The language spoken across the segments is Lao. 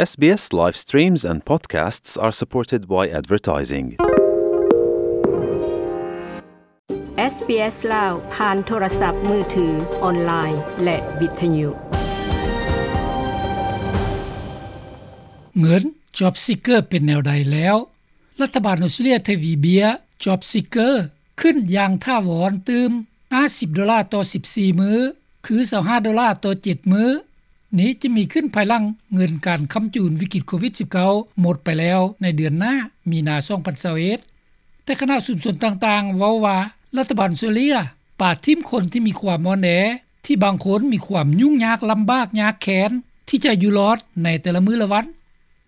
ເອສບີເອສ live streams and podcasts are supported by advertising. ເອສບີເອສ ລາວ ຜ່ານໂທລະສັບມືຖື, ອອນລາຍ ແລະ ວິທະຍຸ. ເງິນ Job Seeker ເປັນແນວໃດແລ້ວ? ລັດຖະບານອົດສະຕຣາເລຍທະວີເບຍ Job Seeker ຂຶ້ນຢ່າງຖາວອນຕື່ມ ຫ້າສິບໂດລາຕໍ່ສິບສີ່ມື້ ຄື ຊາວຫ້າໂດລາຕໍ່ເຈັດມື້. ນີ້ຈະມີຂຶ້ນພາຍຫຼັງເງິນການຄ້ຳຈູນວິກິດໂຄວິດສິບເກົ້າ ໝົດໄປແລ້ວໃນເດືອນໜ້າ ມີນາ ສອງພັນຊາວເອັດ. ແຕ່ຄະນະຊຸມຊົນຕ່າງໆເວົ້າວ່າ ລັດຖະບານອົດສະຕຣາເລຍປະຖິ້ມຄົນທີ່ມີຄວາມອ່ອນແອ ທີ່ບາງຄົນມີຄວາມຫຍຸ້ງຍາກລຳບາກຍາກແຄ້ນທີ່ຈະຢູ່ລອດໃນແຕ່ລະມື້ລະວັນ.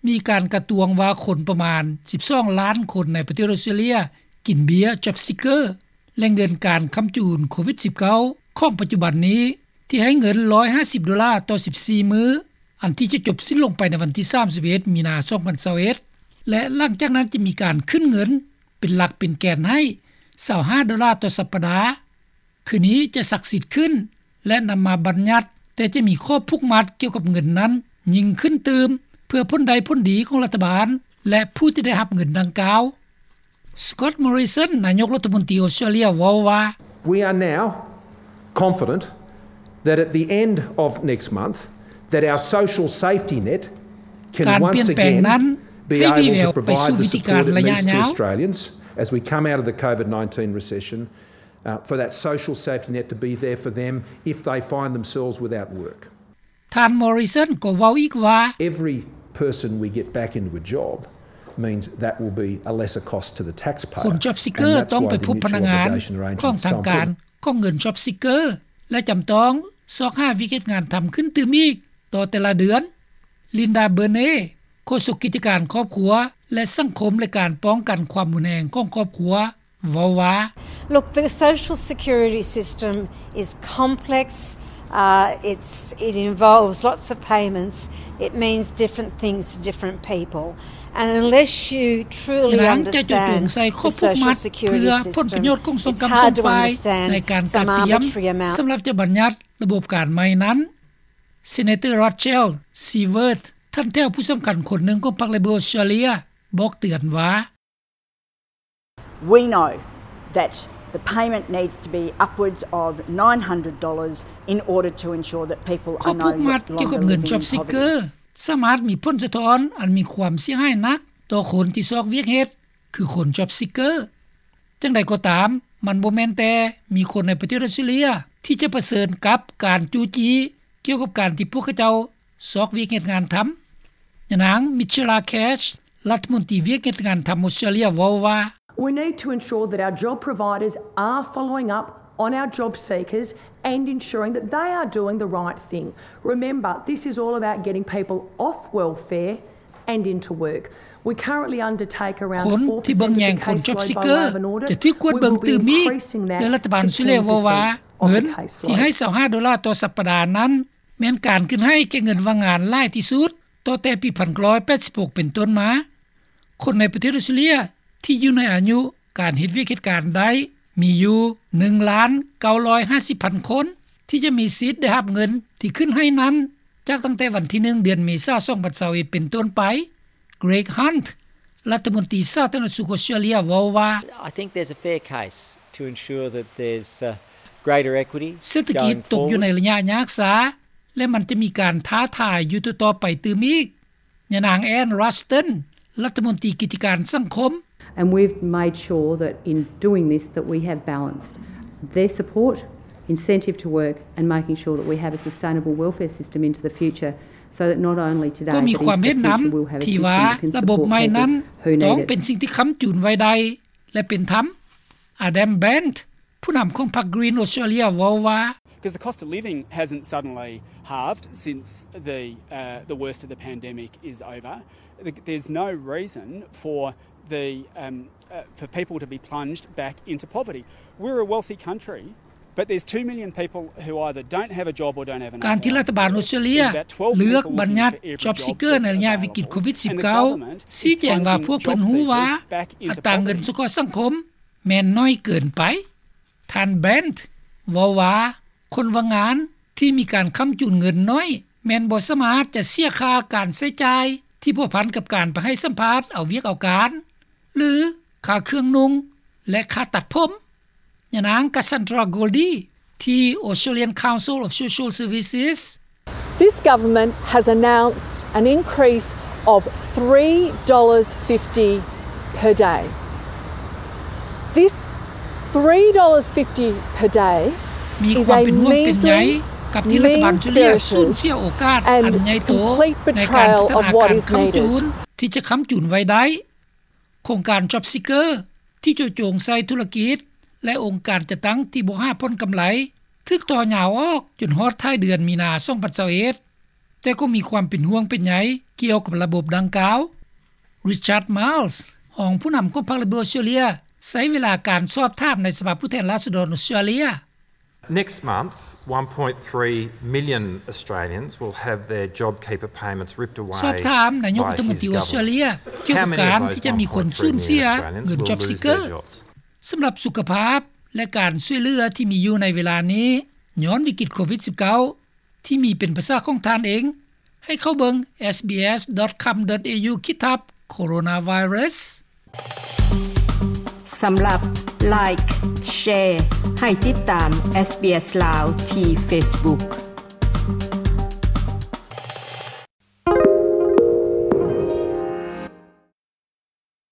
ມີການກະຕວງວ່າຄົນປະມານສິບສອງລ້ານຄົນໃນປະເທດອົດສະຕຣາເລຍກິນເບ້ຍ Job Seeker ແລະ ເງິນການຄ້ຳຈູນໂຄວິດສິບເກົ້າ ຂອງປັດຈຸບັນນີ້ ທີ່ໃຫ້ເງິນຮ້ອຍຫ້າສິບໂດລາຕໍ່ສິບສີ່ມື້ ອັນທີ່ຈະຈົບສິ້ນລົງໄປໃນວັນທີສາມສິບເອັດ ມີນາ ສອງພັນຊາວເອັດ ແລະ ຫຼັງຈາກນັ້ນຈະມີການຂຶ້ນເງິນເປັນຫຼັກເປັນແກນໃຫ້ ຊາວຫ້າໂດລາຕໍ່ສັບປະດາ. ຄືນີ້ຈະສັກສິດຂຶ້ນ ແລະ ນຳມາບັນຍັດ, ແຕ່ຈະມີຂໍ້ຜູກມັດກ່ຽວກັບເງິນນັ້ນຍິ່ງຂຶ້ນຕື່ມ ເພື່ອຜົນໄດ້ຜົນດີຂອງລັດຖະບານ ແລະ ຜູ້ທີ່ໄດ້ຮັບເງິນດັ່ງກ່າວ. Scott Morrison ນາຍົກລັດຖະມົນຕີອົດສະຕຣາເລຍເວົ້າວ່າ We are now confident that at the end of next month, that our social safety net can once again be able to provide the support it needs to Australians as we come out of the COVID nineteen recession, uh, for that social safety net to be there for them if they find themselves without work. ທ່ານ Morrison ກໍເວົ້າອີກວ່າ Every person we get back into a job means that will be a lesser cost to the taxpayer. ຄົນ Job Seeker ຕ້ອງໄປພົບພະນັກງານຂອງທາງການຂອງເງິນ Job Seeker ແລະ ຈຳຕ້ອງຊອກຫາວຽກເຮັດງານທຳຂຶ້ນຕື່ມອີກຕໍ່ແຕ່ລະເດືອນ. Linda Burney ໂຄສົກກິດຈະການຄອບຄົວ ແລະ ສັງຄົມ ແລະ ການປ້ອງກັນຄວາມຮຸນແຮງຂອງຄອບຄົວ ເວົ້າວ່າ Look, the social security system is complex. Uh, it's, it involves lots of payments. It means different things to different people. And unless you truly understand the social security system, it's hard to understand. ຍານາງຈະເຈາະຈົງໃສ່ຂໍ້ຜູກມັດເພື່ອຜົນປະໂຫຍດຂອງສອງກຳສອງຝ່າຍໃນການກະກຽມສຳລັບຈະບັນຍັດລະບົບການໃໝ່ນັ້ນ. Senator Rachel Siewert ທ່ານແຖວຜູ້ສຳຄັນຄົນໜຶ່ງຂອງພັກ Labor ອົດສະຕຣາເລຍ ບອກເຕືອນວ່າ We know that the payment needs to be upwards of nine hundred dollars in order to ensure that people are no longer living in poverty. ຂໍ້ຜູກມັດກ່ຽວກັບເງິນ Job Seeker ສາມາດມີຜົນສະທ້ອນອັນມີຄວາມເສຍຫາຍໜັກຕໍ່ຄົນທີ່ຊອກວຽກເຮັດ ຄືຄົນ Job Seeker. ຈັ່ງໃດກໍຕາມ, ມັນບໍ່ແມ່ນແຕ່ມີຄົນໃນປະເທດອົດສະຕຣາເລຍທີ່ຈະປະເຊີນກັບການຈູ້ຈີ້ກ່ຽວກັບການທີ່ພວກເຂົາເຈົ້າຊອກວຽກເຮັດງານທຳ. ຍານາງ Michela Cash ລັດຖະມົນຕີວຽກເຮັດງານທຳອົດສະຕຣາເລຍ ເວົ້າວ່າ We need to ensure that our job providers are following up on our job seekers and ensuring that they are doing the right thing. Remember, this is all about getting people off welfare and into work. We currently undertake around four percent of the caseload by way of an audit. ຄົນທີ່ເບິ່ງແຍງຄົນ Job Seeker ຈະຖືກກວດເບິ່ງຕື່ມອີກ ແລະ ລັດຖະບານອົດສະຕຣາເລຍເວົ້າວ່າ ເງິນທີ່ໃຫ້ຊາວຫ້າໂດລາຕໍ່ສັບປະດານັ້ນ ແມ່ນການຂຶ້ນໃຫ້ແກ່ເງິນວ່າງງານຫຼາຍທີ່ສຸດ ຕໍ່ແຕ່ປີໜຶ່ງພັນເກົ້າຮ້ອຍແປດສິບຫົກເປັນຕົ້ນມາ. ຄົນໃນປະເທດອົດສະຕຣາເລຍທີ່ຢູ່ໃນອາຍຸການເຮັດວຽກເຮັດການໄດ້ມີຢູ່ໜຶ່ງລ້ານເກົ້າຮ້ອຍຫ້າສິບພັນຄົນ ທີ່ຈະມີສິດໄດ້ຮັບເງິນທີ່ຂຶ້ນໃຫ້ນັ້ນ ຈາກຕັ້ງແຕ່ວັນທີໜຶ່ງ ເດືອນເມສາ ສອງພັນຊາວເອັດເປັນຕົ້ນໄປ. Greg Hunt ລັດຖະມົນຕີສາທາລະນະສຸກອົດສະຕຣາເລຍເວົ້າວ່າ I think there's a fair case to ensure that there's, uh, greater equity going forward. ເສດຖະກິດຕົກຢູ່ໃນໄລຍະຍາກຊ້າ ແລະ ມັນຈະມີການທ້າທາຍຢູ່ຕໍ່ໆໄປຕື່ມອີກ. ຍານາງ Anne Ruston ລັດຖະມົນຕີກິດຈະການສັງຄົມ And we've made sure that in doing this that we have balanced their support, incentive to work and making sure that we have a sustainable welfare system into the future so that not only today but into the future we'll have a system that can support people who need it. ກໍມີຄວາມເຫັນນຳທີ່ວ່າລະບົບໃໝ່ນັ້ນຕ້ອງເປັນສິ່ງທີ່ຄ້ຳຈູນໄວ້ໄດ້ ແລະ ເປັນທຳ. Adam Bandt ຜູ້ນຳຂອງພັກ Green Australia ເວົ້າວ່າ 'Cause the cost of living hasn't suddenly halved since the, uh, the worst of the pandemic is over. Th-, there's no reason for the, um, uh, for people to be plunged back into poverty. We're a wealthy country, but there's two million people who either don't have a job or don't have enough hours to work. ການທີ່ລັດຖະບານອົດສະຕຣາເລຍເລືອກບັນຍັດ Job Seeker ໃນໄລຍະວິກິດໂຄວິດສິບເກົ້າ ຊີ້ແຈງວ່າພວກເພິ່ນຮູ້ວ່າອັດຕາເງິນສົງເຄາະສັງຄົມແມ່ນໜ້ອຍເກີນໄປ. ທ່ານ Bandt ເວົ້າວ່າ ຄົນວ່າງງານທີ່ມີການຄ້ຳຈູນເງິນໜ້ອຍ ແມ່ນບໍ່ສາມາດຈະເສຍຄ່າການໃຊ້ຈ່າຍທີ່ພົວພັນກັບການໄປໃຫ້ສຳພາດເອົາວຽກເອົາການ ຫຼື ຄ່າເຄື່ອງນຸ່ງ ແລະ ຄ່າຕັດຜົມ. ຍານາງ Cassandra Goldie ທີ່ Australian Council of Social Services. This government has announced an increase of three dollars fifty per day. This three dollars fifty per day ມີຄວາມເປັນຫ່ວງເປັນໃຍກັບທີ່ລັດຖະບານອອສເຕຣເລັຽສູນເສຍໂອກາດອັນໃຫຍ່ໂຕໃນການພັດທະນາການຄ້ຳຈູນທີ່ຈະຄ້ຳຈູນໄວ້ໄດ້. ໂຄງການ JobSeeker ທີ່ເຈາະຈົງໃສ່ທຸລະກິດ ແລະ ອົງການຈັດຕັ້ງທີ່ບໍ່ຫາຜົນກຳໄລ ຖືກຕໍ່ຍາວອອກຈົນຮອດທ້າຍເດືອນມີນາ ສອງພັນຊາວເອັດ ແຕ່ກໍມີຄວາມເປັນຫ່ວງເປັນໃຍກ່ຽວກັບລະບົບດັ່ງກ່າວ. Richard Marles ຮອງຜູ້ນຳຂອງພັກ Liberal Australia ໃຊ້ເວລາການສອບຖາມໃນສະພາຜູ້ແທນລາຊະດອນອອສເຕຣເລັຽ. Next month, one point three million Australians will have their JobKeeper payments ripped away by his government. ສອບຖາມນາຍົກລັດຖະມົນຕີອອສເຕຣເລັຽກ່ຽວກັບການທີ່ຈະມີຄົນສູນເສຍເງິນ JobSeeker. ສຳລັບສຸຂະພາບ ແລະ ການຊ່ວຍເຫຼືອທີ່ມີຢູ່ໃນເວລານີ້ ຍ້ອນວິກິດໂຄວິດສິບເກົ້າ ທີ່ມີເປັນພາສາຂອງທ່ານເອງ ໃຫ້ເຂົ້າເບິ່ງ sbs.com.au ຂີດທັບ coronavirus. ສຳລັບ Like, Share ໃຫ້ຕິດຕາມ SBS ລາວ ທີ່ Facebook.